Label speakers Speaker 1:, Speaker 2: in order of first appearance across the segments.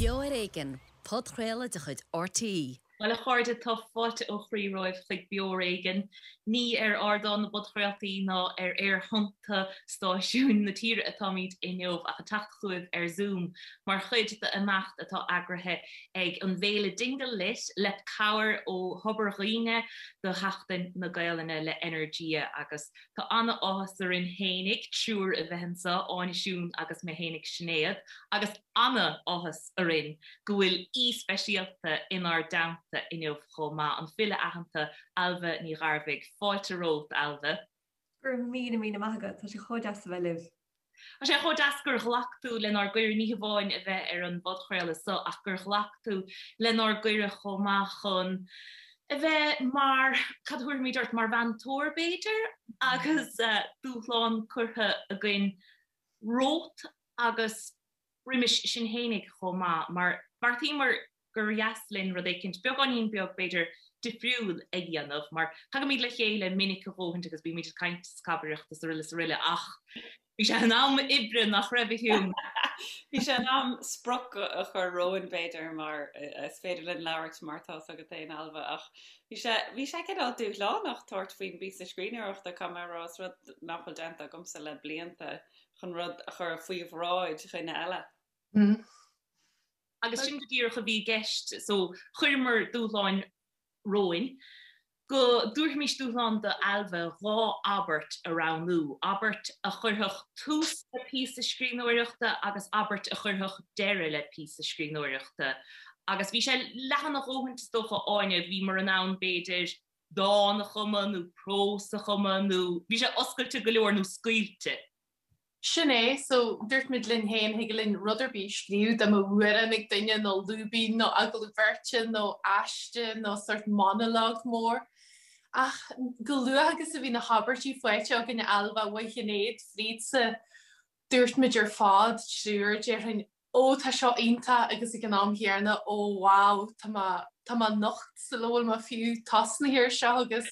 Speaker 1: Beo ar Éigean, podchraoladh de chuid RTÉ.
Speaker 2: Bhuel, a chairde, tá fáilte ó chroí romhaibh chuig Beo ar Éigean. Ní ar ardán na bpodchraoltaí ná ar aerthonnta stáisiúin na tíre atáimid inniu ach ag teacht chugaibh ar Zoom mar chuid d'imeacht atá eagraithe ag an bhféile Dingle Lit le cabhair ó Thobar Dhuibhne do Sheachtain na Gaelainne le Energia agus Tá ana-áthas orainn fhéinig, triúr a bheith anseo, Áine, Siún agus mé fhéinig Sinéad, agus ana-áthas orainn go bhfuil aoi speisialta inár dteannta inniu chomh maith, an file aitheanta Ailbhe Ní Ghairbhigh. Fáilte romhat, Ailbhe.
Speaker 3: Go raibh míle míle maith agat, tá sé chomh deas a bheith libh.
Speaker 2: Tá sé chomh deas gur ghlac tú lenár gcuireadh, ní hamháin a bheith ar an bpodchraoladh so ach gur ghlac tú lenár gcuireadh chomh maith chun a bheith mar, cad a thabharfaimid ort, mar mheantóir b'fhéidir, agus dúshlán curtha againn romhat agus roimis sinn fhéinig chomh maith, mar bheartaíomar gur dheas linn rud éicint beagáinín beag, b'fhéidir, difriúil a dhéanamh, mar tagaimid le chéile minic a dhóthaint agus bímid ag caint is cabaireacht is araile is araile ach bhí sé in am oibre, nach raibh, a Shiún?
Speaker 4: Bhí sé in am sprioc a chur romhainn, b'fhéidir, mar is féidir linn labhairt mar tá's agat féin, Ailbhe, ach bhí sé, bhí sé cineál dúshlánach tabhairt faoin bpíosa scríbhneoireachta, caithfidh mé a rá, is rud nach bhfuil déanta agamsa le blianta, chun rud a chur faoi bhráid dhuine eile.
Speaker 2: Agus sin go díreach a bhí i gceist, so chuireamar dúshláin romhainn, go dtabharfaimis dúshlán do Ailbhe 2 abairt a roghnú, abairt a chuirfeadh tús le píosa scríbhneoireachta agus abairt a chuirfeadh deireadh le píosa scríbhneoireachta. Agus bhí sé leathan a dhóthaint is dócha, Áine, bhíomar in ann b'fhéidir dán a chumadh nó prós a chumadh nó bhí sé oscailte go leor nó scaoilte.
Speaker 5: Sin é, so dúirt muid linn féin, thig linn rud ar bith a scríobh, dá mbeadh amhrán ag duine nó lúibín nó agallamh beirte nó aiste nó sórt monologue mór. Ach chomh luath agus a bhí na habairtí faighte againn Ailbhe uaidh Shinéad frídsa, dúirt muid ar fad, triúr, déarfainn, Ó tá seo iontach agus ag an am chéanna ó wow tá mé tá mé nocht sula bhfuil mé fiú tosnaithe ar seo agus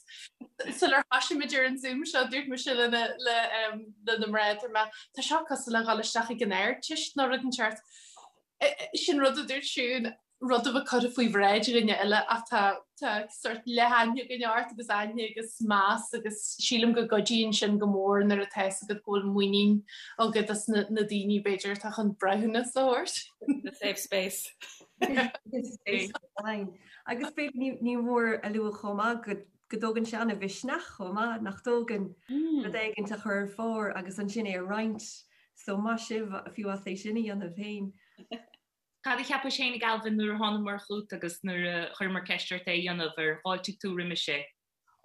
Speaker 5: sular thoisigh muid ar an Zoom seo dúirt mise le na le le na mná dúirt mé tá seo cosúil le dhul isteach ag an Ardteist nó rud inteacht. Sin rud a dúirt Siún rud a bheith curtha faoi bhráid dhuine eile ach tá tá sórt leath-aithne againn ort agus aithne agus meas agus sílim go gcuidíonn sin go mór nuair atá fhios agat go bhfuil muinín agat as na na daoine b'fhéidir atá chun breithiúnas a thabhairt.
Speaker 4: The safe space.
Speaker 3: Agus b'fhéidir ní ní mór a lua chomh maith go go dtógann sé an-mhisneach chomh maith nach dtógann rud éigint a chur ar phár agus ansin é a roinnt so maith sibh fiú as é sin a dhéanamh féin.
Speaker 2: Cad a cheapais fhéinig Ailbhe nuair a thánamar chugat agus nuair a chuireamar ceist ort é a dhéanamh, ar fháiltigh tú roimis é?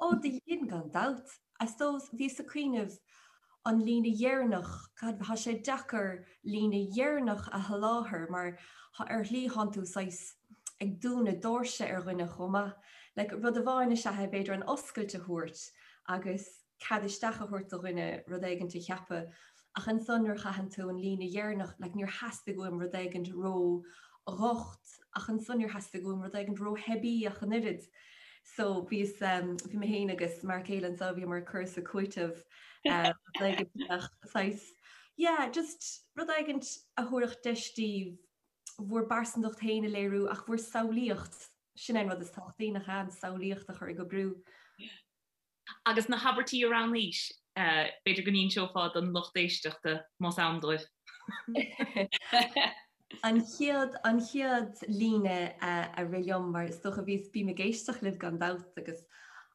Speaker 3: Ó, do dhein, gan dabht. I suppose, bhíos ag cuimhneamh an líne dheireanach, cad, thá sé deacair líne dheireanach a sholáthar mar ar shlí thánn tú saghas ag dúnadh doirse ar dhuine chomh maith. Like, rud amháin is ea é b'fhéidir an oscailt a thabhairt agus cead isteach a thabhairt do dhuine rud éigint a cheapadh ach ansan nuair a chaitheann tú an líne dheireanach like níor theastaigh uaim rud éigint ró dhocht ach ansan níor theastaigh uaim rud éigint ró theibí ach an oiread. So bhíos um, bhí mé féin agus m'fhear céile anseo bhíomar ag cur is ag cúiteamh um, rud éigint a bheadh saghas yeah just rud éigint a thabharfadh deis daoibh bhur bpearsantacht féin a léiriú ach bhur samhlaíocht sin é an rud is tábhachtaí nach ea an samhlaíocht a chur ag oibriú.
Speaker 2: Agus na habairtí a roghnaís, b'fhéidir go n-inseofá don lucht éisteachta, más ann dóibh.
Speaker 3: An chéad, an chéad líne a rith liom, mar is dócha bhíos, bím ag éisteacht libh gan dabht agus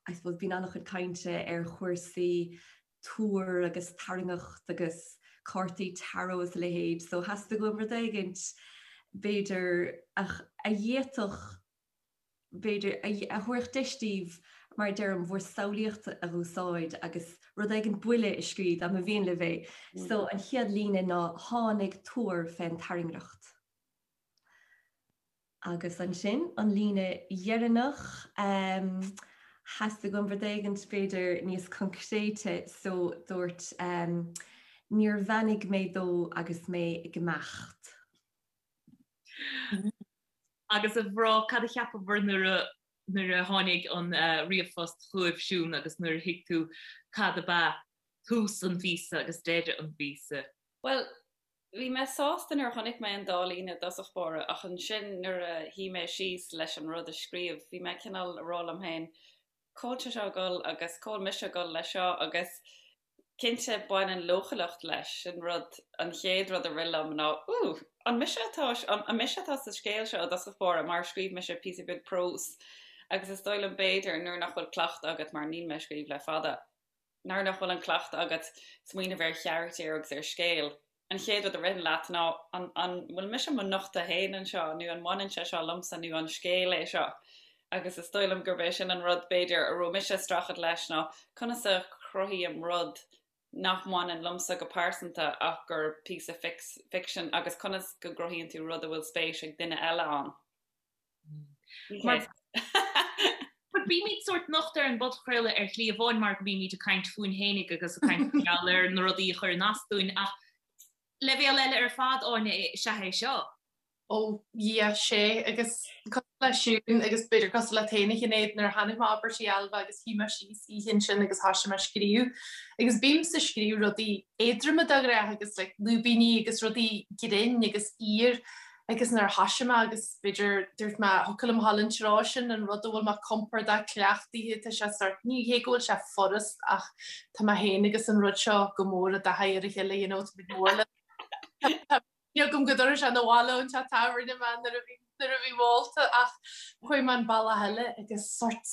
Speaker 3: I suppose bíonn an-chuid cainte ar chúrsaí tuar agus tairngeacht agus cártaí tarot is a leithéid, so theastaigh uaim rud éigint b'fhéidir a d'fhéadfadh b'fhéidir, a thabharfadh deis daoibh, mar a deirim, bhur samhlaíocht a dh'úsáid agus rud éigin buile a scríobh, dá mba mhian libh é. So, an chéad líne ná 'Tháinig tuar fén tairngreacht'. Agus ansin, an líne dheireanach, theastaigh uaim rud éigin, b'fhéidir, níos coincréite, so dúirt, 'Níor bheannaigh mé dó agus mé ag imeacht'.
Speaker 2: Agus a mhná, cad a cheapabhair nuair a nuair a tháinig an ríomhphost chugaibh, Siún, agus nuair a thuig tú cad ab ea tús an phíosa agus deireadh an phíosa?
Speaker 4: Bhuel, Bhí mé sásta nuair a chonaic mé an dá líne i dtosach báire ach ansin nuair a shuigh mé síos leis an rud a scríobh bhí mé cineál ag rá liom féin cá bhfuil sé seo ag dul agus cá bhfuil mise ag dul leis seo agus cinnte baineann leochaileacht leis sin rud an chéad rud a rith liom ná ooh an mise atá an mise atá sa scéal seo i dtosach báire mar scríobh mise píosa beag próis agus is dóigh liom b'fhéidir nuair nach bhfuil cleachtadh agat mar níl mé ag scríobh le fada. Nuair nach bhfuil an cleachtadh agat smaoineamh ar charachtair agus ar scéal, an chéad rud a ritheann leat ná an an bhfuil mise mo nochtadh féin anseo nó an mbaineann sé seo liomsa nó an scéal é seo? Agus is dóigh liom gurb é sin an rud b'fhéidir a raibh mise ag streachailt leis ná conas a chruthaím rud nach mbaineann liomsa go pearsanta ach gur píosa ficsin agus conas go gcruthaíonn tú rud a bhfuil spéis ag duine eile ann.
Speaker 2: Mar bímid sórt nochta ar an bpodchraoladh ar shlí amháin mar go mbímid ag caint fúinn fhéinig agus ag caint mar gheall ar na rudaí a chuireann as dúinn ach leibhéal eile ar fad Áine is ea é seo.
Speaker 5: Ó yeah sea agus cosúil le Siún agus b'fhéidir cosúil leat féin a Shinéad nuair a chonaic mé abairtí Ailbhe agus shuigh mé síos oíche ansin agus thoisigh mé ag scríobh agus bímse ag scríobh rudaí éadroma de ghnáth agus like lúibíní agus rudaí grinn agus fhíor Agus nuair a thoisigh mé agus b'fhéidir dúirt mé thiocfadh liom a ghabháil an treo sin, an rud a bhfuil mé compordach cleachtaithe, tá sé sort, ní hé go bhfuil sé furast ach tá mé féin agus an rud seo go mór i dtaithí ar a chéile, you know, tá muid mór le Tá agam go dtabharfaidh sé 'na bhaile ón teach tábhairne mé nuair a bhí nuair a bhí ólta ach chuaigh mé an bealach eile agus sort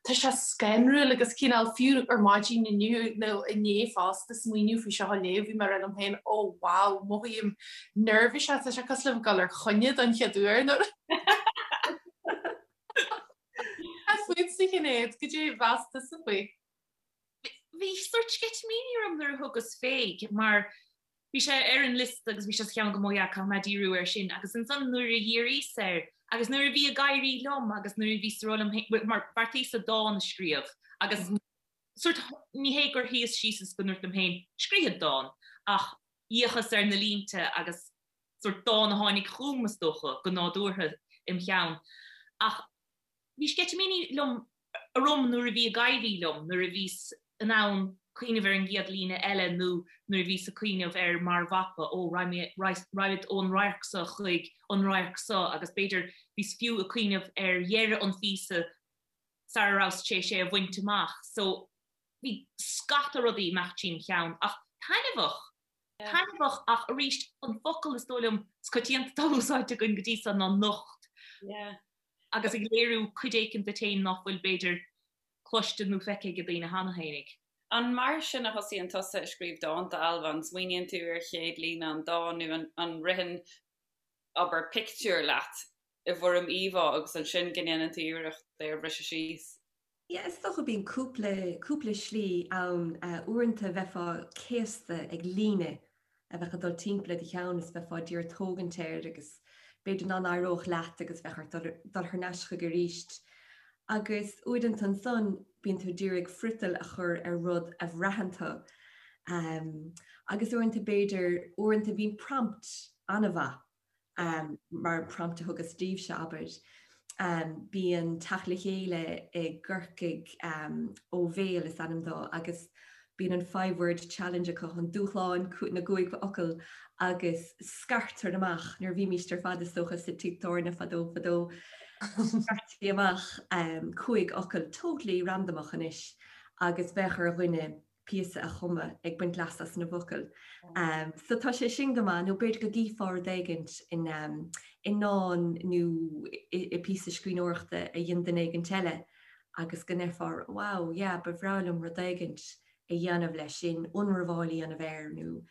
Speaker 5: Tá sé scanrúil agus cineál fiú ar maidin inniu nó inné fosta smaoineamh faoi seo a léamh bhí mé ag rá liom féin oh wow mothaím neirbhíseach tá sé cosúil le bheith ag dul ar choinne don chéad uair nó Cad fútsa a Shinéad, goidé a mheas tusa faoi?
Speaker 2: Bhí sórt sceitimíní orm nuair a thugas fé mar bhí sé ar an liosta agus bhí sé sa cheann agam oh yeah caithfidh mé díriú air sin agus ansan nuair a dhíríos air agus nuair a bhí ag éirí liom agus nuair a bhíos ag rá liom féin mar bheartaíos-sa dán a scríobh agus sórt ní hé gur shuíos síos is go ndúirt liom féin scríobhfad dán ach d'fhéachas ar na línte agus sórt dán a tháinig chugam is dócha go nádúrtha im cheann ach Bhí sceitimíní liom orm nuair a bhí ag éirí liom, nuair a bhíos in ann cuimhneamh ar an gcéad líne eile nó nuair a bhíos ag cuimhneamh ar mar mhapa, ó, raghaimid ón radharc seo chuig an radharc seo agus b'fhéidir bhíos fiú ag cuimhneamh ar dheireadh an phíosa sara rabhas tar éis é a bhaint amach. So bhí scata rudaí ag imeacht tríom cheann ach taitneamhach, taitneamhach ach arís an focal is dóigh liom is coitianta atá úsáidte againn go dtí seo ná nocht.
Speaker 4: Yeah.
Speaker 2: agus ag léiriú cuid éicint duit féin nach bhfuil, b'fhéidir, cloiste nó feicthe ag daoine cheana fhéinig.
Speaker 4: An mar sin a thosaíonn tusa ag scríobh dánta, Ailbhe? An smaoiníonn tú ar chéad líne an dáin nó an ritheann, abair, pictiúr leat i bhfoirm íomhá agus ansin go ndéanann tú iarracht é a bhriseadh síos?
Speaker 3: Yeah, is dócha bíonn cúpla, cúpla slí ann. Uaireanta bheifeá céasta ag líne a bheadh ag dul timpeall i do cheann is bheifeá d'iarraidh tógaint air agus b'fhéidir nach n-éireodh leat agus bheadh ort dul, dul thar n-ais chuige arís. Agus uaireanta ansan bíonn tú d'iarraidh friotal a chur ar rud a bhraitheann tú. Agus uaireanta b'fhéidir, uaireanta bíonn prompt an-mhaith. mar prompt a thugas daoibhse, abair. Bíonn teacht le chéile i gCorcaigh Ó Bhéal is ainm dó agus bíonn an five word challenge acu, an dúshlán na gcúig fhocal agus scartar amach, nuair a bhímíst ar fad is dócha sa tigh tábhairne fadó fadó, scartaí amach cúig fhocal totally randamach anois agus bheadh ar dhuine píosa a chumadh ag baint leas as na bhfocail. So tá sé sin go maith, nó b'fhéidir go gcífeá rud éigint in i ndán nó i píosa scríbhneoireachta a dhein duine éigint eile agus go ndeirfeá wow, yeah, ba bhreá liom rud éigint a dhéanamh leis sin, ionramháil a dhéanamh air nó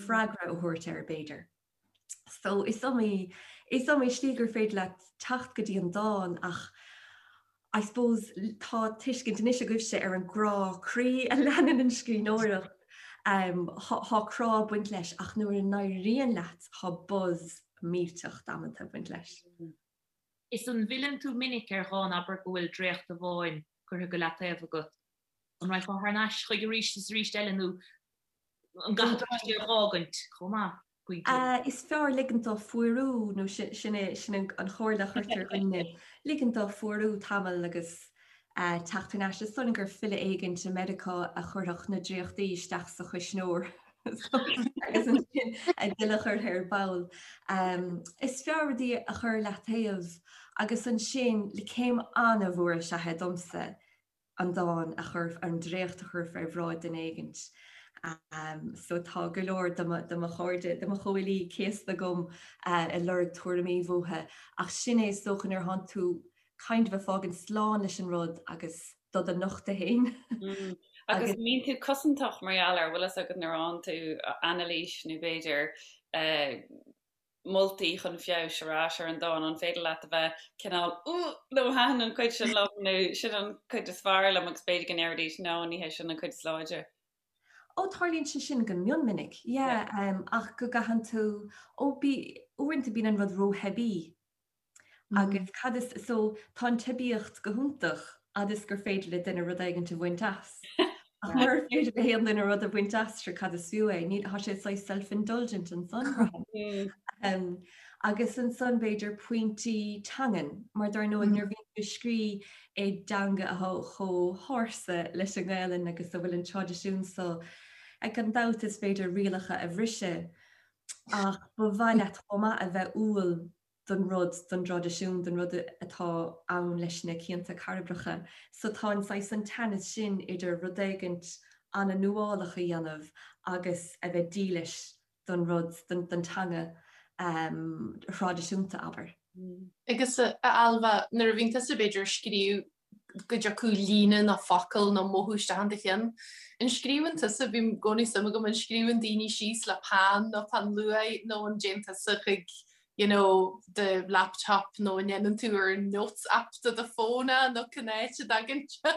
Speaker 3: freagra a thabhairt air b'fhéidir. So is iomaí, is iomaí slí gur féidir leat teacht go dtí an dán ach I suppose tá tuiscint anois agaibhse ar an gcrá croí a leanann an scríbhneoireacht. Tá crá ag baint leis ach nuair a n-éiríonn leat tá buzz millteach damanta ag baint leis.
Speaker 2: Is an bhfilleann tú minic ar dhán, abair go bhfuil dréacht amháin curtha go leataobh agat, an raghfá thar n-ais chuige arís is arís eile nó an gcaithfidh tú é a dh'fhágaint chomh maith?
Speaker 3: pointe. Is fearr ligint dó fuarú, nó sin é sin an chomhairle a chuirtear ar dhaoine, ligint dó fuarú tamall agus teacht thar n-ais. Is dóigh liom gur file éigint i Meiriceá a chuirfeadh na dréachtaí isteach sa chuisneoir. Agus ansin a thuilleadh a chur ar ball. Is fearr rudaí a chur leataobh agus ansin le céim an-mhór is ea é domsa an dán a chur, an dréacht a chur fé bhráid duine éigint. So tá go leor de mo chairde, de mo chomhfhilí céasta agam ag lorg tuairimí uathu ach sin é is dócha nuair atánn tú kind of ag fágaint slán leis an rud agus do do nochtadh
Speaker 4: féin. Agus an mbíonn tú cosantach mar gheall air, bhfuil fhios agat nuair a fhaigheann tú anailís nó b'fhéidir moltaí chun feabhais ar ais ar an dán, an féidir leat a bheith cineál ooh no thaitin an chuid sin liom nó sin an chuid is fearr liom agus b'fhéidir go ndéarfaidís no ní hé sin an chuid is láidre.
Speaker 3: Ó tarlaíonn sé sin go mion minic, yeah, ach go gcaitheann tú, ó bí, uaireanta bíonn an rud rótheibí Agus cad is, so tá an teibíocht go hiontach fhad is gur féidir le duine rud éigint a bhaint as. Ach murar féidir le haon duine rud a bhaint as, sure cad is fiú é? Níl, tá sé saghas self-indulgent ansan. Um, agus ansan b'fhéidir pointí teangan, mar dar ndóigh nuair a bhíonn tú ag scrí i dteanga atá chomh hársa leis an nGaelainn agus a bhfuil an traidisiún so, gan dabht is féidir rialacha a bhriseadh Ach ba mhaith leat chomh maith a bheith umhal don rud, don dtraidisiún, don rud atá ann leis na cianta cairbreacha. So tá an saghas an teannas sin idir rud éigint an-nuálach a dhéanamh agus a bheith dílis don rud, don teanga thraidisiúnta, abair.
Speaker 5: Agus a Ailbhe, nuair a bhíonn tusa b'fhéidir ag scríobh go dtiocfadh líne nó focal nó mothú isteach in do cheann. An scríobhann tusa, bíonn i gcónaí suim agam, an scríobhann daoine síos le peann nó peann luaidhe nó an dtéann tusa chuig you know do laptop nó an ndéanann tú ar an notes app de do fón é nó cén áit a dtagann sé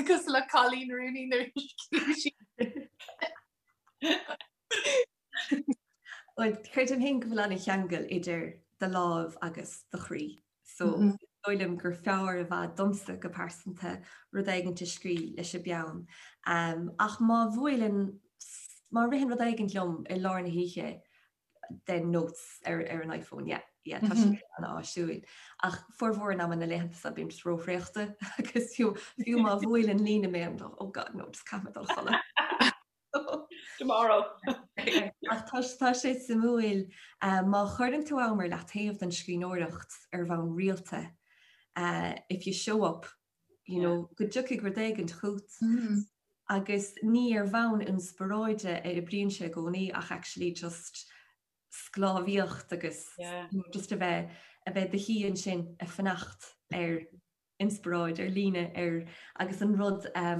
Speaker 5: cosúil le Coleen Rooney nuair a scríobh sí.
Speaker 3: Bhuel, creidim féin go bhfuil an-cheangal idir do láimh agus do chroí. So is dóigh liom gur fearr i bhfad domsa go pearsanta rud éigint a scrí leis an bpeann. Ach má bhuaileann, má ritheann rud éigint liom i lár na hoíche, then notes ar ar an iPhone, yeah, yeah, tá sé an-áisiúil. Ach formhór an ama na laethanta seo bím just róthraochta agus fiú fiú má bhuaileann líne mé, oh God, no, just caithfidh mé dul a chodladh.
Speaker 4: Tomorrow.
Speaker 3: Ach tá tá sé suimiúil má chuireann tú am ar leataobh don scríbhneoireacht ar bhonn rialta, if you show up, you know, go dtiocfaidh rud éigint chugat. Agus ní ar bhonn inspioráide a oibríonn sé i gcónaí ach actually just sclábhaíocht agus just a bheith a bheith i do shuí ansin ag fanacht ar inspioráid, ar líne, ar agus an rud a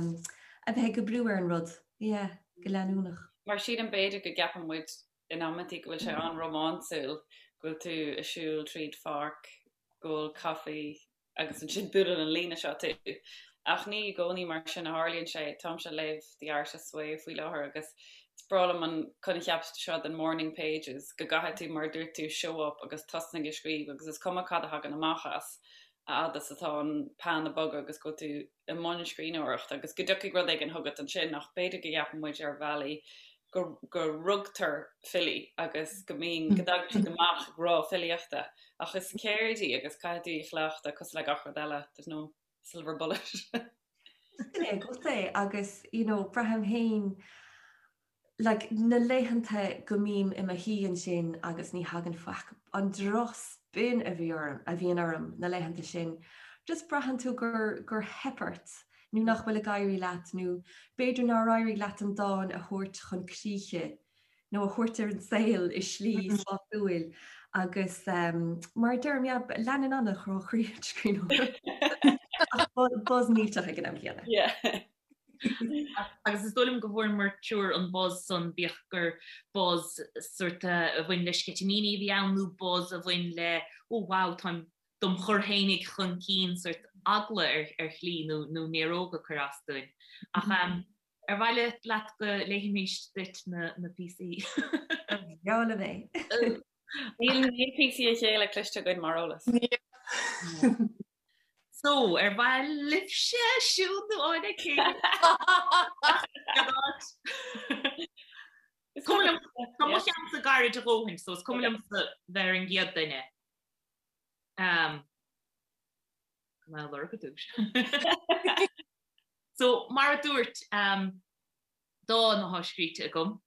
Speaker 3: bheith ag oibriú ar an rud, yeah, go leanúnach.
Speaker 4: Mar sílim b'fhéidir go gceapann muid in amantaí go bhfuil sé an-rómánsúil, go bhfuil tú ag siúl tríd pháirc, ag ól caife agus ansin buaileann an líne seo tú. Ach ní i gcónaí mar sin a tharlaíonn sé. Táimse ag léamh The Artist's Way faoi láthair agus is breá liom an coincheap seo den morning pages, go gcaithfidh tú, mar a dúirt tú, show up agus tosnaigh ag scríobh agus is cuma cad a thagann amach as. a fhad is atá an peann ag bogadh agus go bhfuil tú i mbun scríbhneoireachta agus go dtiocfaidh rud éigin chugat ansin ach b'fhéidir go gceapann muid ar bhealaí go go rugtar filí agus go mbíonn go dtagann siad amach ag rá filíochta ach is ceird í agus caithfidh tú í a chleachtadh cosúil le gach rud eile there's no silver bullet.
Speaker 3: Sin é agat é agus you know braithim féin like na laethanta go mbím i mo shuí ansin agus ní thagann faic, an drochspin a bhí orm, a bhíonn orm na laethanta sin, just braitheann tú gur, gur theip ort nó nach bhfuil ag éirí leat nó b'fhéidir nár éirigh leat an dán a thabhairt chun críche nó a thabhairt ar an saol i slí sásúil agus mar a deirim, yeah, leanann an-chrá croí an scríbhneoireacht ach buzz millteach ag an am céanna.
Speaker 4: Yeah.
Speaker 2: Agus is dóigh liom go bhfuaireamar triúr an buzz san, bíodh gur buzz sort a bhain le sceitimíní a bhí ann nó buzz a bhain le oh wow táim dom chur fhéinig chun cinn sort eagla ar ar shlí nó nó néaróg ag cur as dúinn. Ach ar mhaith leat go léifimís duit na na píosaí?
Speaker 3: Breá liom é.
Speaker 4: Níl níl píosaí a chéile cloiste againn mar eolas.
Speaker 2: So, ar mhaith libhse Siún nó Áine cé? Is cuma liom tá mo cheannsa gairid a dhóthain, so is cuma liomsa bheith ar an gcéad duine. Um, Go lorg ar dtús. So, mar a dúirt um, dán atá scríte agam.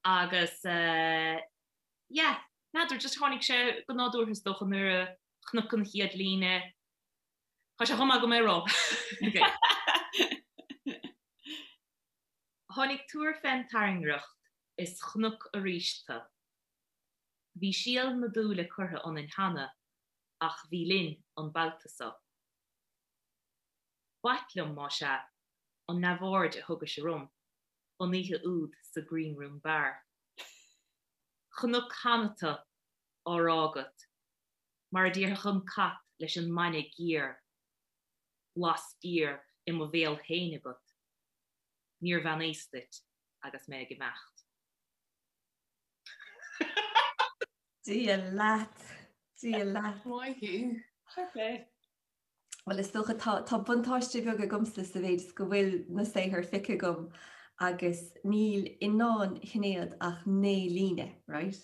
Speaker 2: Agus yeah, n'fheadar, just tháinig sé go nádúrtha is dócha nuair a chonac an chéad líne. Tá sé chomh maith agam é a rá. Tháinig tuar fén tairngreacht is chonac arís tu. Bhí síol na dúile curtha ionainn cheana ach bhí linn an babhta so. B'ait liom, más ea, an neamhaird a thugais orm an oíche úd sa Green Room Bar. Chonac cheana tu á rá agat, mar a déarfadh an cat leis an mbainne géar, blas géar i mo bhéal féin agat, níor bheannaíos duit agus mé ag imeacht.
Speaker 3: Dia leat, Dia leat.
Speaker 5: Maith thú.
Speaker 4: Fair play.
Speaker 3: Bhuel is dócha tá tá buntáiste beag agamsa sa mhéid is go bhfuil na saothair feicthe agam agus níl i ndán Shinéad ach 9 líne, right?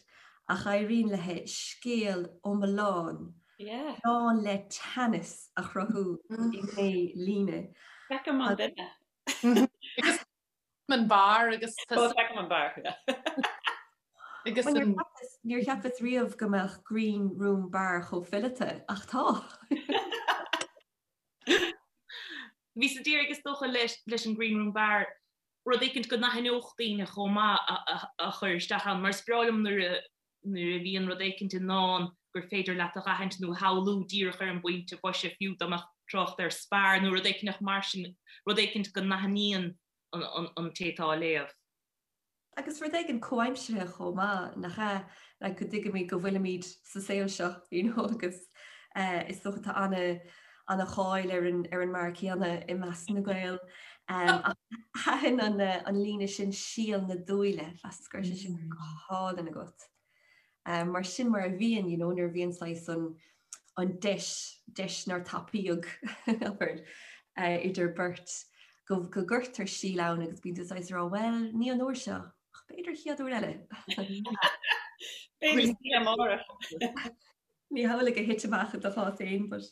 Speaker 3: Ach éiríonn léi scéal iomlán
Speaker 4: Yeah.
Speaker 3: lán le teannas a chruthú i 9 líne.
Speaker 4: Feicim an duine.
Speaker 5: Agus an beár agus
Speaker 4: Feicim an beár.
Speaker 5: Agus an
Speaker 3: Níor cheapas riamh go mbeadh Green Room Bar chomh fileata, ach tá.
Speaker 2: Bhíos ag iarraidh is dócha leis an Green Room Bar rud éicint go n-aithneodh daoine chomh maith a chur isteach ann, mar is breá liom nuair a nuair a bhíonn rud éicint i ndán gur féidir leat a dh'aithint nó a shamhlú díreach ar an bpointe boise, fiú dá mbeadh trácht ar spear nó rud éicint mar sin, rud éicint go n-aithníonn an té atá á léamh.
Speaker 3: Agus rud éigin comhaimseartha chomh maith, nach ea? Like go dtuigimid go bhfuilimid sa saol seo, you know, agus is dócha tá ana ana cháil ar an ar an mbeár céanna i measc na Gael. Ach thaitin an an líne sin síol na dúile, mheasas go raibh sé sin go hálainn agat. Mar sin mar a bhíonn, you know, nuair a bhíonn saghas an an deis, deis nár tapaíodh, abair, idir beirt, go go gcuirtear síol ann agus bíonn tú saghas ag rá, bhuel, ní an uair seo, ach b'fhéidir an chéad uair eile.
Speaker 4: B'fhéidir oíche amárach.
Speaker 3: Ní hamhlaidh a thit amach i do chás féin, but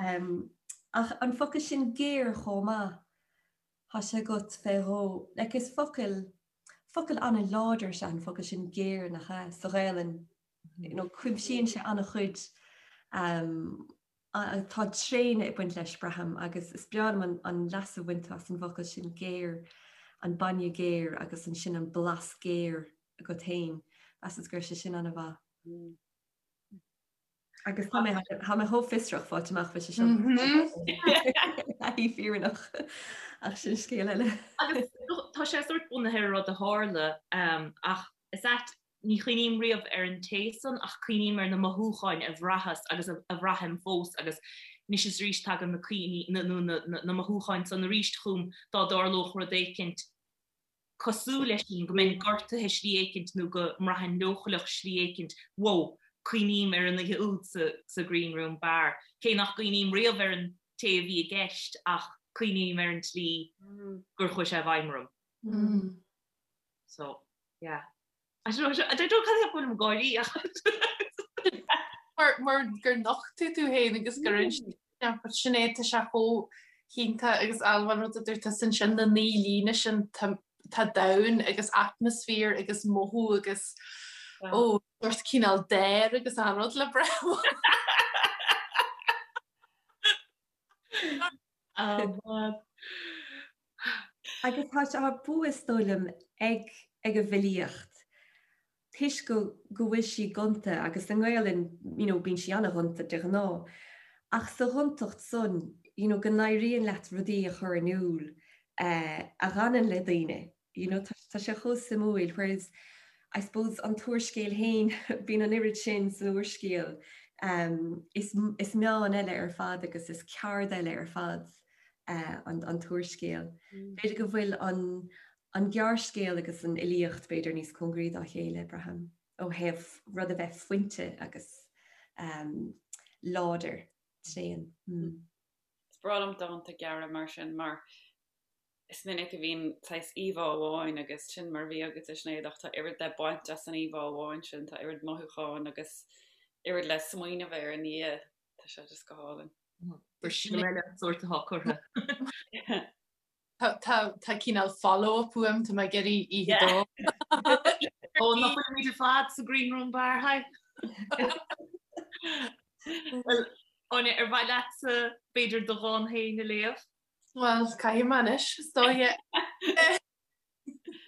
Speaker 3: um, ach an focal sin géar chomh maith, tá sé agat fé dhó. Like is focal, focal an-láidir is ea an focal sin géar nach ea, sa Ghaelainn. You know, cuimsíonn sé an-chuid um, tá tréine ag baint leis, braithim, agus is breá liom an, an leas a bhain tú as an bhfocal sin géar, an bainne géar agus ansin an blas géar agat féin. Mheasas go raibh sé sin an-mhaith. Mm. Agus tá mé tá mé chomh fiosrach fáilt amach faoi seo. Taithí fírinneach ach sin scéal eile.
Speaker 2: Agus tá sé sórt bunaithe ar rud a tharla ach is ait ní chuimhním riamh ar an té san ach cuimhním ar na mothúcháin a bhraitheas agus a bhraithim fós agus anois is arís tagann na cuimhní nó na mothúcháin san arís chugam dá dtarlódh rud éicint cosúil leis sin, go mbeinn gortaithe slí éicint nó go mbraithfinn leochaileach slí éicint, wow, cuimhním ar an oíche úd sa Green Room Bar. Cé nach gcuimhním riamh ar an té a bhí i gceist ach cuimhním ar an tslí gur chuaigh sé i bhfeidhm orm. So, yeah. I don't know, I don't know cad é go bhfuilim ag gáirí ach.
Speaker 5: Mar, mar gur nocht tú tú féin agus gur inis but sin é tá sé chomh hiontach agus Ailbhe an rud a dúirt tusa ansin na 9 líne sin tá tá domhan agus atmaisféar agus mothú agus ó sórt cineál dair agus an rud le breith.
Speaker 3: Agus tá sé tá bua is dóigh liom ag ag an bhfilíocht toisc go go bhfuil sí gonta agus i nGaelainn you know bíonn sí an-ghonta de ghnáth ach sa ghontacht san you know go n-éiríonn leat rudaí a chur in iúl eh a dh'fhanann le daoine you know tá tá sé chomh suimiúil whereas I suppose an t-úrscéal féin bíonn an oiread sin san úrscéal um is is meán eile ar fad agus is ceard eile ar fad eh an an t-úrscéal. B'fhéidir go bhfuil an an gearrscéal agus an fhilíocht b'fhéidir níos cóngaraí dá chéile, braithim, ó thaobh rud a bheith fuinte agus um láidir, tréan. Mm.
Speaker 4: Is breá liom dánta gearra mar sin mar is minic a bhíonn saghas íomhá amháin agus sin mar a bhí agat a Sinéad ach tá oiread le baint as an íomhá amháin sin, tá oiread mothúcháin agus oiread le smaoineamh air i ndiaidh, tá sé just go hálainn.
Speaker 2: Gur sin eile sórt atá curtha.
Speaker 5: Tá cineál follow-up uaim, tá mé ag iarraidh oíche dó.
Speaker 2: Ó nach bhfuilimid ar fad sa Green Room Bar, hi. Well, Áine, ar mhaith leatsa b'fhéidir do dhán féin a léamh?
Speaker 5: Well, caithfidh mé anois, is dóigh.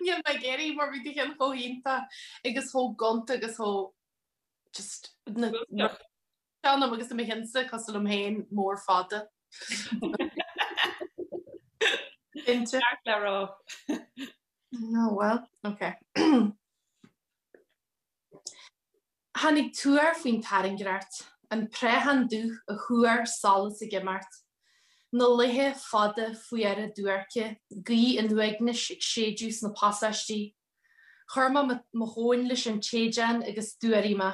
Speaker 5: Níl mé ag iarraidh mar bhí do cheann chomh hiontach agus chomh gonta agus chomh just na Seanam agus mo chinnsa cosúil liom féin mór fada.
Speaker 4: Cinnte. Ceart le rá.
Speaker 5: No, well, ok. Tháinig tuar faoin tairngreacht, an préachán dubh a thuar solas ag imeacht, na laethe fada fuara duairce, gaoth an uaignis ag séideadh sna pasáistí, Chuir mé mo thóin leis an tséideán agus d'fhuaraigh mé.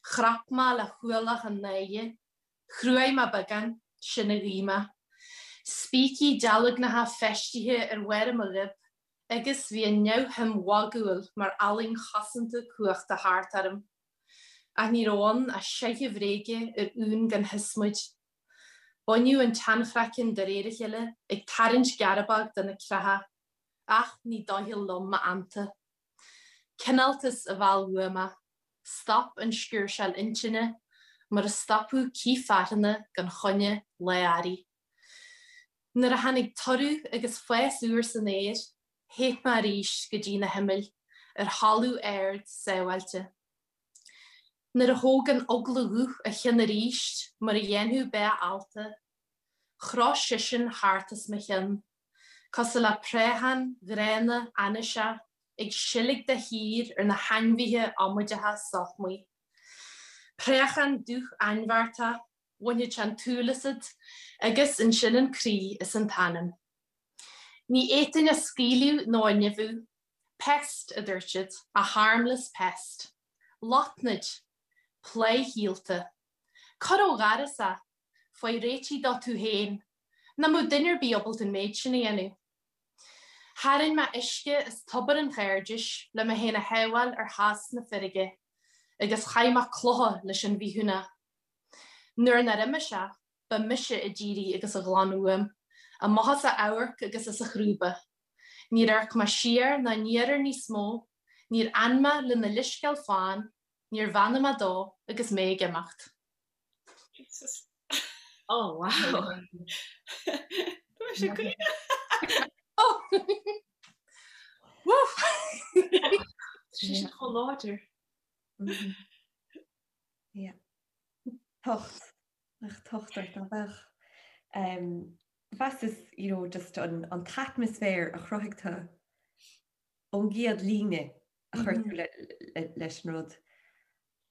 Speaker 5: Chrap mé le hualach an náire. Chruaigh mé beagán, sin a ghuigh mé. Spící dealgnacha feistithe ar bharra mo ghoib agus bhí an neamhshuim mhagúil mar fhallaing chosanta cumhachta thart orm. Ach ní raibh ann ach seicheamh bhréige ar uain gan shiosmaid. Baineadh an tseanchraiceann de réir a chéile, ag tarraingt gearbóg de na creacha. Ach ní doicheall liom m'fheannta. Cineáltas a mheall uaidh mé. Stop an sciúrsáil intinne, mar a stopadh cith fearthanna gan choinne lá earraigh. Nuair a tháinig toradh agus fás úr san aer, theith mé arís go dtí na himill, ar thalamh ard sábháilte. Nuair a thóg an eagla dhubh a cheann arís, mar a dhéanfadh bá allta, chroith seisean thart os mo chionn. Cosúil le préachán gránna ainniseach ag seilg de shíor ar na hainmhithe amaideacha sochmaí. Préachán dubh ainbheartach, bhainfeadh sé an tsúil asat agus ansin an croí is an t-anam. Ní fhéadfainn a scaoileadh nó a nimhiú. Pest, a dúirt siad, a harmless pest. Lotnaid. Plá shíolta. Cuir ó dhoras é! Faigh réitigh dó tú féin. Nach mbeadh duine ar bith ábalta an méid sin a dhéanamh. Tharraing mé uisce as tobar an chairdis le mé féin a shábháil ar theas na feirge agus chaith mé clocha leis an bhithiúnach. Nuair nár imigh sé, ba mise a d'éirigh agus a ghlan uaim, amach as a amharc agus as a chrúba. Níor amharc mé siar ná aniar air níos mó, níor fhan mé lena leithscéal fann, níor bheannaigh mé dó agus mé ag imeacht.
Speaker 4: Jesus.
Speaker 2: Oh wow.
Speaker 4: Tá sé caoineadh.
Speaker 5: Oh! Woof!
Speaker 2: Tá sé chomh láidir.
Speaker 3: Yeah. Tocht. Nach tocht ort ná bheadh. Mheasas, you know, just an, an t-atmaisféar a chruthaigh tú ón gcéad líne a chuir tú leis an rud.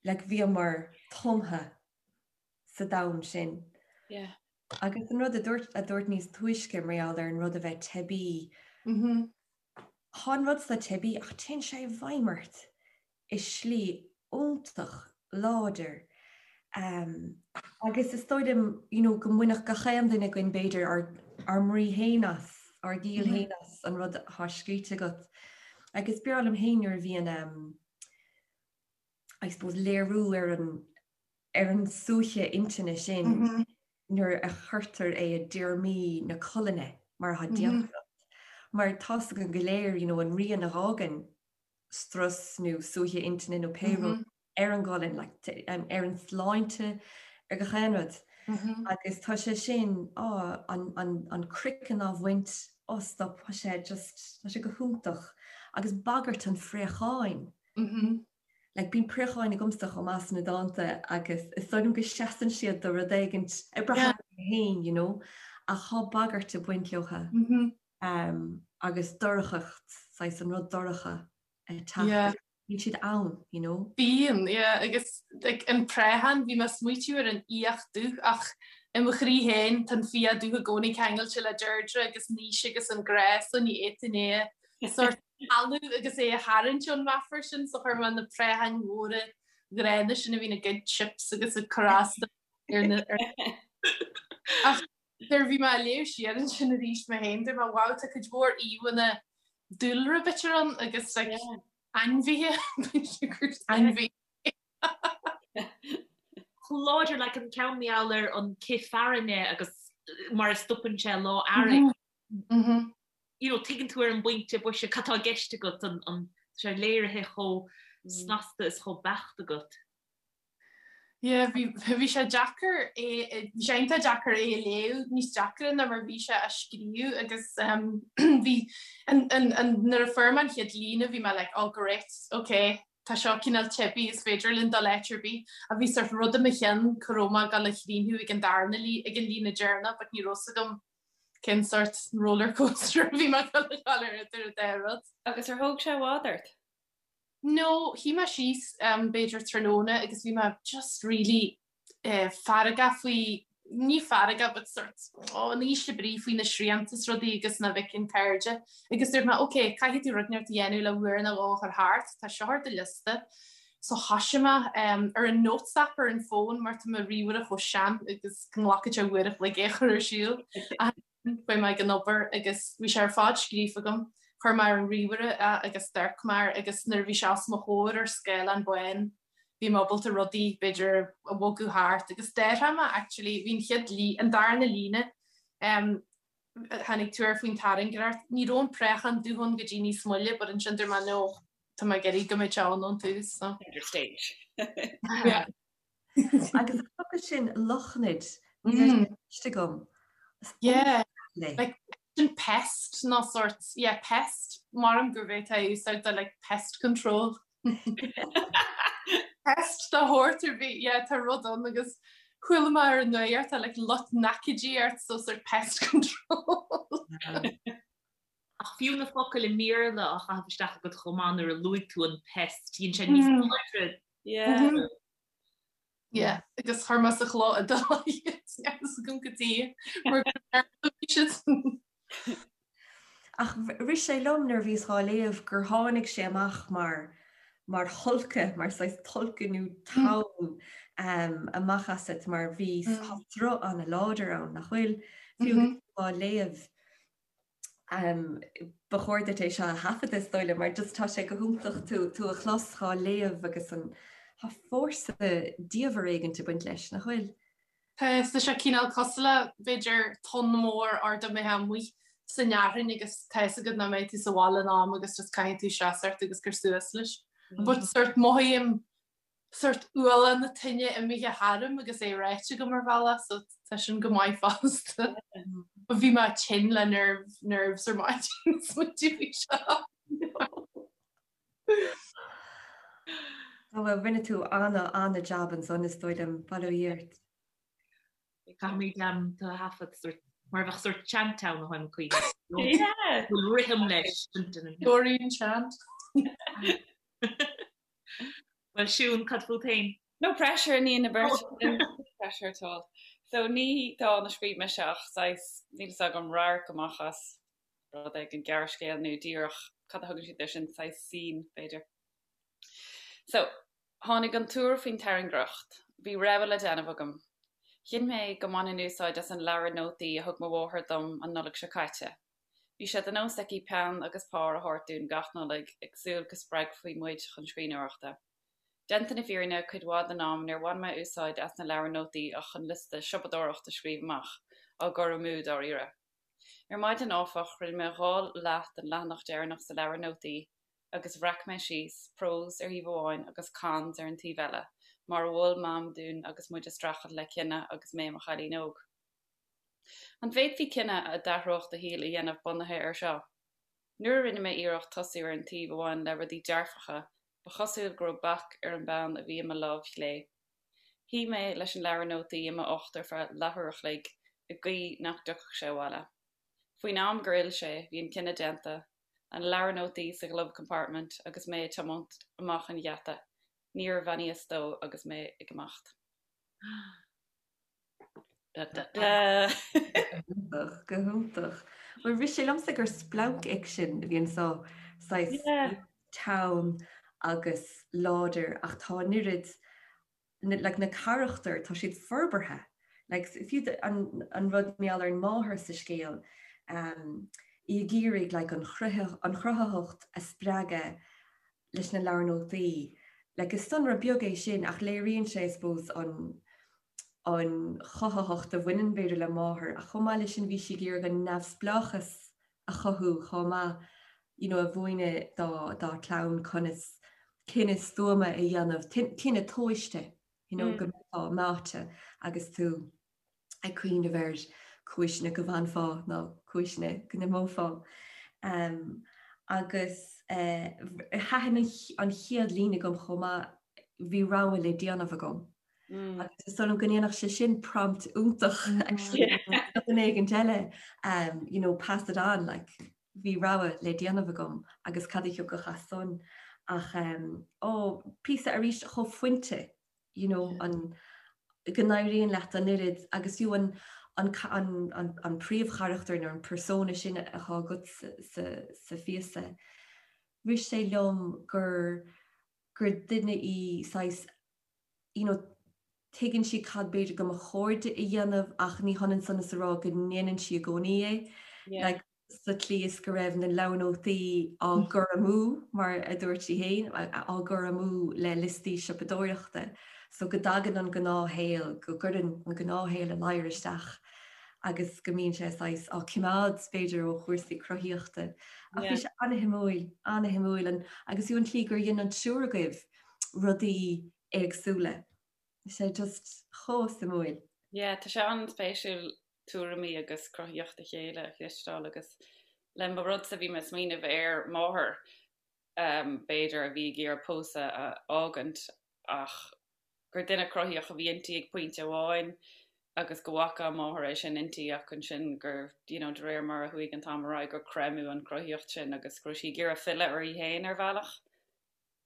Speaker 3: Like bhíomar tumtha sa domhan sin.
Speaker 4: Yeah.
Speaker 3: Agus an rud a dúirt a dúirt níos túisce mar gheall ar an rud a bheith teibí. Tá an rud so teibí ach téann sé i bhfeidhm ort i slí iontach láidir. Agus is dóigh liom you know go mbainfeadh gach aon duine againn b'fhéidir ár ár mbrí féin as, ár gciall féin as an rud atá scríte agat. Agus b'fhearr liom féin nuair a bhíonn I suppose léiriú ar an ar an suaitheadh intinne sin nuair a chuirtear é i dtéarmaí na colainne mar atá déanta agat. Mar tá's againn go léir you know an rian a dh'fhágann strus nó suaitheadh intinne nó pé rud ar an gcolainn, like, ar an sláinte, ar gach aon rud. Agus tá sé sin, á, an, an, an craiceann á bhaint, á stop, tá sé just, tá sé go hiontach. Agus bagairt an phréacháin. Like, bíonn préacháin agamsa chomh maith sna dánta agus is dóigh liom go seasann siad do rud éigint ag brath orm féin, you know, ach tá bagairt ag baint leotha. Agus dorchacht, saghas an rud dorcha ag teacht. Bíonn siad ann, you know.
Speaker 5: Bíonn, yeah, agus like, an préachán, bhí mé ag smaoitiú ar an fhiach dubh ach i mo chroí féin tá an fiach dubh i gcónaí ceangailte le Deirdre agus Naoise agus an grá so ní fhéadfainn é a sort shamhlú agus é a tharraingt ón meafar sin so chuir mé na préacháin mhóra ghránna sin a bhíonn ag goid chips agus ag cur as ar na Ach nuair a bhí mé ag léamh siar ansin arís mé féin dúirt mé wow tá cuid mhór íomhánna dúlra b'fhéidir ann agus like ainmhithe ainmhí.
Speaker 2: Chomh láidir like an ceann mar gheall ar an cith fearthainne agus mar a stopann sé lá earraigh. You know, tuigeann tú ar an bpointe boise cad tá i gceist agat an an tá sé léirithe chomh. snasta is chomh beacht agat.
Speaker 5: Yeah, bhí bhí sé deacair é bhí sé iontach deacair é a léamh, níos deacra ná mar bhí sé á scríobh agus bhí an an an nuair a fuair mé an chéad líne bhí mé like oh great, ok, tá seo cineál teibí, is féidir linn dul áit ar bith ach bhí sort rud i mo cheann cá raibh mé ag dul a chríochnú ag an darna lí ag an líne deireanach but ní raibh 's agam cén sort roller coaster a bhí mé ag dul a ghabháil ar idir an dá rud.
Speaker 4: Agus ar thóg sé i bhfad ort?
Speaker 5: No, shuigh mé síos b'fhéidir tráthnóna agus bhí mé just really feargach faoi, ní feargach but sort oh in ísle brí faoi na srianta is rudaí agus nach bhfeicfinn cairde agus dúirt mé ok caithfidh tú rud inteacht a dhéanamh le uair nó dhó a chur thart, tá seo ar do liosta. So thoisigh mé ar an notes app ar an bhfón mar tá mo ríomhaire chomh sean agus go nglacfaidh sé uair a chloig é a chur ar siúl. Chuaigh mé ag an obair agus bhí sé ar fad scríofa agam. Chuir mé ar an ríomhaire é agus d'amharc mé air agus nuair a bhí sé os mo chomhair ar scáileán bán bhí mé ábalta rudaí b'fhéidir a bhogadh thart agus d'athraigh mé actually bhí an chéad lí an darna líne em tháinig tú air faoin tairngreacht ní raibh an préachán dubh ann go dtí níos moille but ansin dúirt mé no tá mé ag iarraidh go mbeidh sé ann ón tús
Speaker 4: so. Center stage.
Speaker 5: Yeah.
Speaker 3: Agus an focal sin lotnaid, ní raibh sé cloiste agam.
Speaker 5: Yeah, like sin pest nó sort, yeah, pest, maram gurb é atá úsáid do like pest control. Pest de shórt ar bith, yeah, tá rud ann agus chuala mé ar an nuacht tá like lotnaidicídí ort so sort pest control.
Speaker 2: Ach fiú na focail i mBéarla á chaitheamh isteach agat chomh maith nuair a luaigh tú an pest, dhein sé níos láidre.
Speaker 4: Yeah.
Speaker 5: Yeah, agus chuir mé sa chló iodálach iad, níl a fhios agam cad chuige mar gur bhí siad.
Speaker 3: Ach rith sé liom nuair a bhíos dhá léamh gur tháinig sé amach mar mar thulcadh, mar saghas tulcadh nó tonn amach asat mar bhí tá sruth an-láidir ann, nach bhfuil? Fiú agus tú á léamh. Ba chóir duit é seo a thaifeadadh is dóigh liom mar just tá sé go hiontach tú tú a chlos dhá léamh agus an tá fórsa diamhair éigint ag baint leis, nach bhfuil?
Speaker 5: Tá, tá sé cineál cosúil le b'fhéidir tonn mór ard imithe amuigh san fhearthainn agus tá fhios agat nach mbeidh tú sa bhaile in am agus just caithfidh tú seasamh ort agus cur suas leis. But sort mothaím sort ualach na toinne imithe tharam agus é ráite agam ar bhealach so tá sin go maith fosta. But bhí mé tinn le nerve, nerves ar maidin smaointiú faoi seo.
Speaker 3: Ó bhuel rinne tú ana ana jab ansan is dóigh liom, bail ó Dhia ort.
Speaker 2: Caithfimid tú a thaifead sort mar a bheadh sort chant ann a tháim cuimhne. Yeah. Bhfuil rithim leis.
Speaker 5: Dorian chant.
Speaker 2: Bhuel Siún, cad fút féin?
Speaker 4: No pressure i ndiaidh na beirte sin, no pressure at all. So ní dán a scríobh mise ach saghas, níl fhios agam, radharc amach as rud éigin, gearrscéal nó díreach, cad a thugann siad air sin, saghas scene, b'fhéidir. So, tháinig an tuar faoin tairngreacht. Bhí rogha le déanamh agam. Chinn mé go mbainfinn úsáid as an leabhar nótaí a thug mo mháthair dom an Nollaig seo caite. Bhí sé de nós aici peann agus pár a thabhairt dúinn gach Nollaig, ag súil go spreagfaí muid chun scríbhneoireachta. Déanta na fírinne, cuid mhaith den am níor bhain mé úsáid as na leabhair nótaí ach chun liosta siopadóireachta a scríobh amach, á gcur amú dáiríre. Ar maidin, áfach, rinne mé 2 leath den leathanach deireanach sa leabhar nótaí agus bhreac mé síos, pros ar thaobh amháin agus cons ar an taobh eile, mar a mhol Mam dúinn agus muid ag streachailt le cinneadh agus mé i mo chailín óg. An bhféadfaí cinneadh a d'athródh do shaol a dhéanamh bunaithe air seo? Nuair a rinne mé iarracht tosú ar an taobh a bhain le rudaí dearfacha, ba chosúil go raibh bac ar an bpeann a bhí i mo lámh chlé. Shuigh mé leis an leabhar nótaí i m'ucht ar feadh leathuair a chloig, ag guí nach dtiocfadh sé abhaile. Faoin am gur fhill sé, bhí an cinneadh déanta, an leabhar nótaí sa glove compartment agus mé ag tiomáint amach an gheata. Níor bheannaíos dó agus mé ag imeacht.
Speaker 3: Da, da, da. Go hiontach. Bhuel rith sé liomsa gur splancfhicsean a bhí anso, saghas teann agus láidir ach tá an oiread like na carachtair tá siad forbartha. Like fiú an an rud mar gheall ar an máthair sa scéal um, í ag iarraidh like an an chruthaitheacht a spreagadh leis na leabhair nótaí. Like is sonra beag é sin ach léiríonn sé I suppose an an chothaitheacht a bhaineann b'fhéidir le máthair ach chomh maith leis sin bhí sí ag iarraidh an neamhspleáchas a chothú chomh maith you know a mhúineadh dá dá clann conas. Cinneadh stuama a dhéanamh, cinneadh tomhaiste, you know, go mbeifeá meáite agus tú ag cuimhneamh ar cúiseanna go bhfanfá nó cúiseanna go n-imeofá. Agus thaitin an chéad líne agam chomh maith, bhí rogha le déanamh agam. Agus is dóigh liom go ndéanfadh sé sin prompt iontach actually do dhuine éigin eile, you know, pass it on, like, bhí rogha le déanamh agam agus cad a thiocfadh as san ach ó, píosa arís chomh fuinte, you know, an, go n-éiríonn leat an oiread agus fiú an, an, an, an príomhcharachtar nó an persona sin atá agat sa, sa, sa phíosa, rith sé liom gur, gur duine í saghas, you know, tuigeann sí cad b'fhéidir go mba chóir di a dhéanamh ach ní hionann san is a rá go ndéanann sí i gcónaí é. Like, sa tslí is go raibh na leabhar nótaí á gcur amú, mar a dúirt sí féin, á gcur amú le liostaí siopadóireachta. So go dtagann an gnáthshaol, go gcuireann an gnáthshaol a ladhar isteach agus go mbíonn sé saghas á coimeád, b'fhéidir, ó chúrsaí cruthaíochta. Ach bhí sé ana-shuimiúil, ana-shuimiúil, agus fiú an tslí gur dhein an triúr agaibh rudaí éagsúla. Bhí sé just chomh suimiúil.
Speaker 4: Yeah, tá sé an-spéisiúil tuairimí agus cruthaíocht a chéile a chloisteáil agus le mo rudsa bhí mé ag smaoineamh ar máthair b'fhéidir a bhí ag iarraidh pósadh a fhágaint ach gur duine cruthaíoch a bhí inti ag pointe amháin agus go bhfaca a máthair é sin inti ach ansin gur you know de réir mar a chuaigh an t-am ar aghaidh gur creimeadh an chruthaíocht sin agus go raibh sí ag iarraidh filleadh uirthi féin ar bhealach.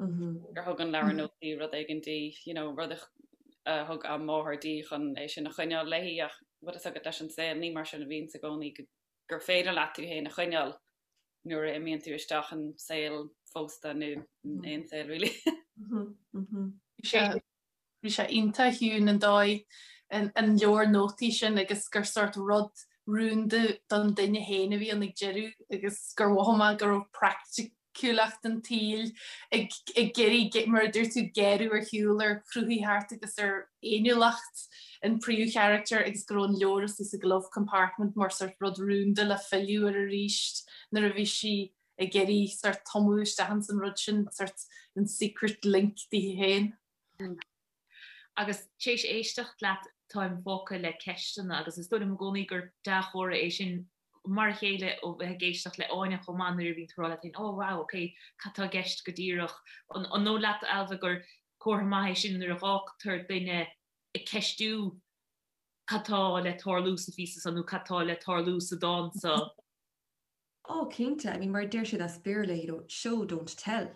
Speaker 4: gur thug an leabhar nótaí rud éigin di, you know, rud a thug a máthair di chun é sin a choinneáil léi ach bhfuil fhios agat leis an saol ní mar sin a bhíonns i gcónaí gur féidir leat tú féin a choinneáil nuair a imíonn tú isteach in saol phósta nó in aon saol really.
Speaker 5: Bhí sé iontach ciúin an dóigh an leabhar nótaí sin agus gur sórt rud rúnda don duine féin a bhí ann ag deireadh agus gur mhothaigh mé go raibh praiticiúlacht an tsaoil ag iarraidh, mar a dúirt tú, géarú ar shiúl ar chruthaitheacht agus ar fhéiniúlacht an príomhcharachtar agus go raibh an leabhar istigh sa glove compartment mar sórt rud rúnda le filleadh air arís nuair a bhí sí ag iarraidh sórt tumadh isteach ins an rud sin, sórt an secret link di féin.
Speaker 2: Agus tar éis éisteacht leat táim fágtha le ceisteanna agus is dóigh liom i gcónaí gur dea-chomhartha é sin mar a chéile ó bheith ag éisteacht le Áine chomh maith nuair a bhíonn tú ag rá leat féin oh wow ok cad tá i gceist go díreach. An dóigh leat Ailbhe gur comhartha maith é sin nuair a dh'fhágtar duine ag ceistiú cad tá le tarlú sa phíosa seo nó cad tá le tarlú sa dán seo?
Speaker 3: Oh cinnte, I mean mar a deir siad as Béarla, you know, show don't tell.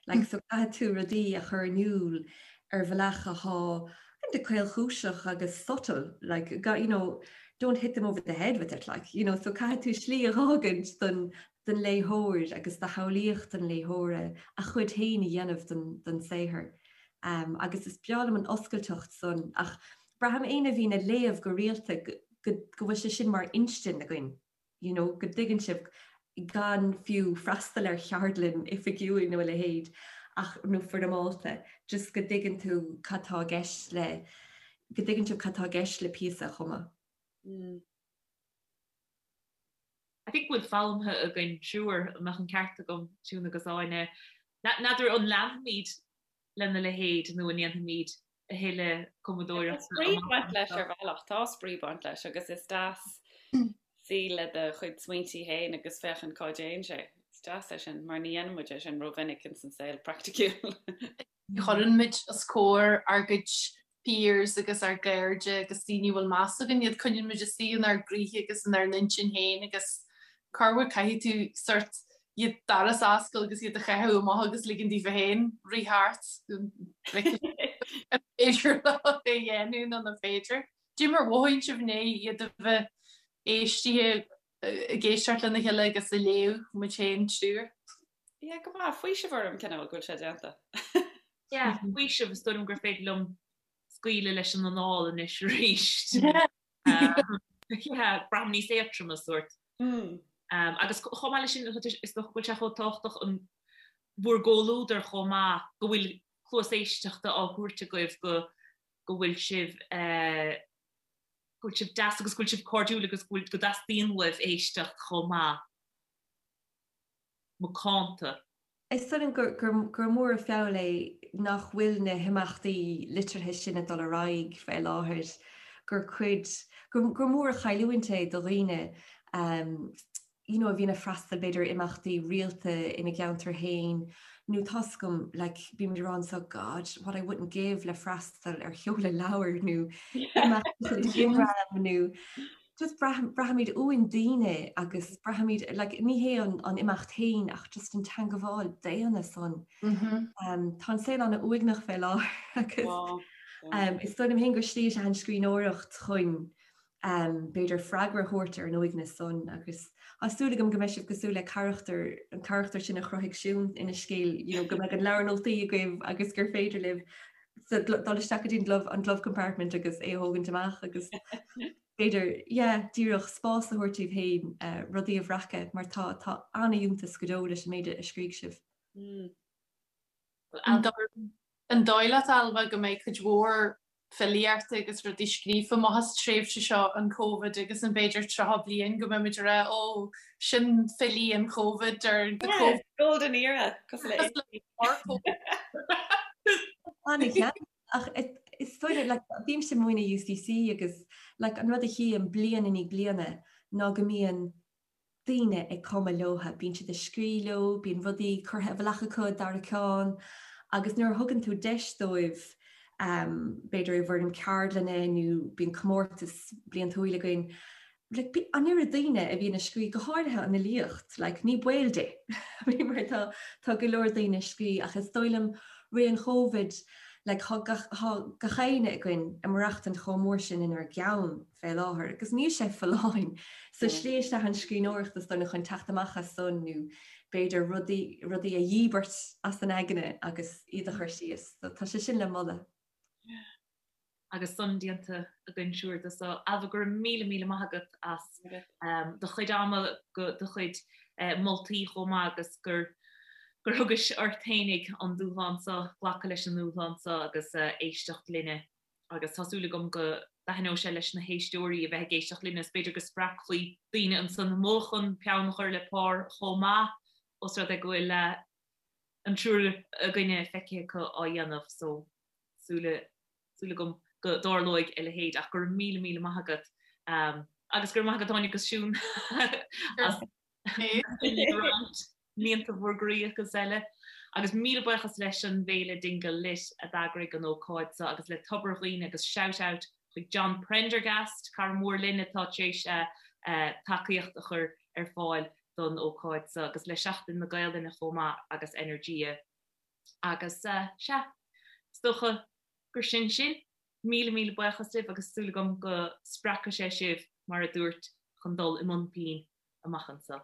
Speaker 3: Like so caithfidh tú rudaí a chur in iúl ar bhealach atá kind of caolchúiseach agus subtle, like you know, don't hit them over the head with it, like, you know, so caithfidh tú slí a dh'fhágaint don don léitheoir agus do shamhlaíocht an léitheora a chuid féin a dhéanamh den den saothar. Um, agus is breá liom an oscailteacht san ach braithim éinne a bhíonn ag léamh go rialta go go go bhfuil sé sin mar instinn againn. you know, go dtuigeann sibh gan fiú freastal ar cheardlann oifigiúil nó a leithéid ach nó foirmeálta, just go dtuigeann tú cad tá i gceist le, go dtuigeann sibh cad tá i gceist le píosa a chumadh.
Speaker 2: Mm. I think go bhfuil foghlamtha againn triúr, an mbeadh an ceart agam, Siún agus Áine. N'fheadar an leanfaimid lena leithéid nó an ndéanfaimid a thuilleadh
Speaker 4: cumadóireachta. Tá spraoi ag baint leis ar bhealach, tá spraoi ag baint leis agus is deas suí le do chuid smaointí féin agus féachaint cá dtéann sé. Is deas é sin, mar ní dhéanann muid é sin rómhinic ins an saol praiticiúil.
Speaker 5: Ní chuireann muid os comhair ár gcuid peers agus ár gcairde agus daoine a bhfuil meas againn iad, coinníonn muid istigh inár gcroíthe agus inár n-intinn féin agus corruair caithfidh tú sort iad doras a oscailt agus iad a chaitheamh amach agus ligean daofa féin rith thart an féidir leo é a dhéanamh nó nach féidir. Cad é mar a mhothaíonn sibh i ndiaidh iad a bheith éistithe ag éisteacht lena chéile agus a léamh muid féin triúr?
Speaker 4: Yeah, go maith. Faoiseamh orm cineál go bhfuil sé déanta.
Speaker 2: Yeah, faoiseamh is dóigh liom gur féidir liom scaoileadh leis an anáil anois arís. Yeah, braithim níos éadtroime sórt. Mm. Um, agus chomh maith leis sin is dócha go bhfuil sé chomh tábhachtach in bhur gcomhluadar chomh maith go bhfuil cluas éisteachta á thabhairt agaibh go go bhfuil sibh uh, go bhfuil sibh deas agus go bhfuil sibh cairdiúil agus go bhfuil go dteastaíonn uaibh éisteacht chomh maith. Macánta.
Speaker 3: Is dóigh liom gur, gur, gur mór an feall é nach bhfuil na himeachtaí liteartha sin ag dul ar aghaidh fé láthair, gur cuid, gur, gur mór an chailliúint é do dhaoine um, you know, a bhíonn ag freastal b'fhéidir ar imeachtaí rialta ina gceantar féin nó tá's agam like bímid ag rá anseo God, what I wouldn't give le freastal ar sheoladh leabhair nó imeacht Jim nó just braithimid uainn daoine agus braithimid like ní hé an an imeacht féin ach just an teangabháil daonna san. Um, tá an saol an-uaigneach fé láthair agus um, is dóigh liom féin gur slí is ea an scríbhneoireacht chun um, b'fhéidir freagra a thabhairt ar an uaigneas san agus tá súil agam go mbeidh sibh cosúil le carachtar an carachtar sin a chruthaigh Siún ina scéal you know, go mbeidh an leabhar nótaí agaibh agus gur féidir libh dul isteach go dtí an glove, an glove compartment agus é a thógaint amach agus b'fhéidir yeah, díreach spás a thabhairt daoibh féin uh, rudaí a bhreacadh mar tá tá an-fhiúntas go deo leis an méid a scrígh sibh.
Speaker 5: Mm. An dóigh leat Ailbhe go mbeidh cuid mhór filíochta agus rudaí scríofa amach as tréimhse seo an Covid agus an b'fhéidir 30 bliain go mbeimid ag rá ó sin filí an Covid or the
Speaker 4: Yeah,
Speaker 5: Covid.
Speaker 4: golden era cosúil le
Speaker 3: An-cheart. Ach is dóigh liom, like, bímse ag múineadh UCC agus like, an rud a chím bliain i ndiaidh bliana ná go mbíonn daoine ag cumadh leotha, bíonn siad ag scrí leo, bíonn rudaí curtha i bhfolach acu, dara ceann, agus nuair a thugann tú deis dóibh, b'fhéidir i bhfoirm ceardlainne nó bíonn comórtas bliantúil againn, like, an oiread daoine a bhíonn ag scrí, go háirithe an fhilíocht, like, ní baol di, mar tá, tá go leor daoine ag scrí ach is dóigh liom ré an Chóivid, like, tá gach, tá gach éinne againn ag maireachtaint chomh mór sin inár gceann. fé láthair agus níl sé folláin. So slí is ea an scríbhneoireacht is dóigh liom chun teacht amach as san nó b'fhéidir rudaí, rudaí a dhíbirt as an aigne agus iad a chur síos. So tá sé sin le moladh.
Speaker 2: Agus san déanta againn siúr de so. Ailbhe, go raibh míle míle maith agat as do chuid ama, go do chuid moltaí chomh maith agus gur gur thugais ort fhéinig an dúshlán so, glacadh leis an ndúshlán so agus éisteacht linne. agus tá súil agam go dtaitneoidh sé leis na héisteoirí a bheith ag éisteacht linn agus b'fhéidir go spreagfaí daoine ansan amuigh chun peann a chur le pár chomh maith, os rud é go bhfuil an triúr againne feicthe acu á dhéanamh so súil súil agam go dtarlóidh a leithéid ach go raibh míle míle maith agat agus go raibh maith agat Áine agus Siún as mianta bhur gcroí agus eile. Agus míle buíochas leis an bhFéile Dingle Lit a d'eagraigh an ócáid seo agus le Tobar Dhuibhne agus shout out chuig John Prendergast, cara mór linn atá tar éis tacaíocht a chur ar fáil don ócáid seo agus le Seachtain na Gaelainne chomh maith agus Energia. Agus sea, is dócha gur sin sin. Míle míle buíochas libh agus súil agam go spreagfaidh sé sibh, mar a dúirt, chun dul i mbun pinn amach anseo.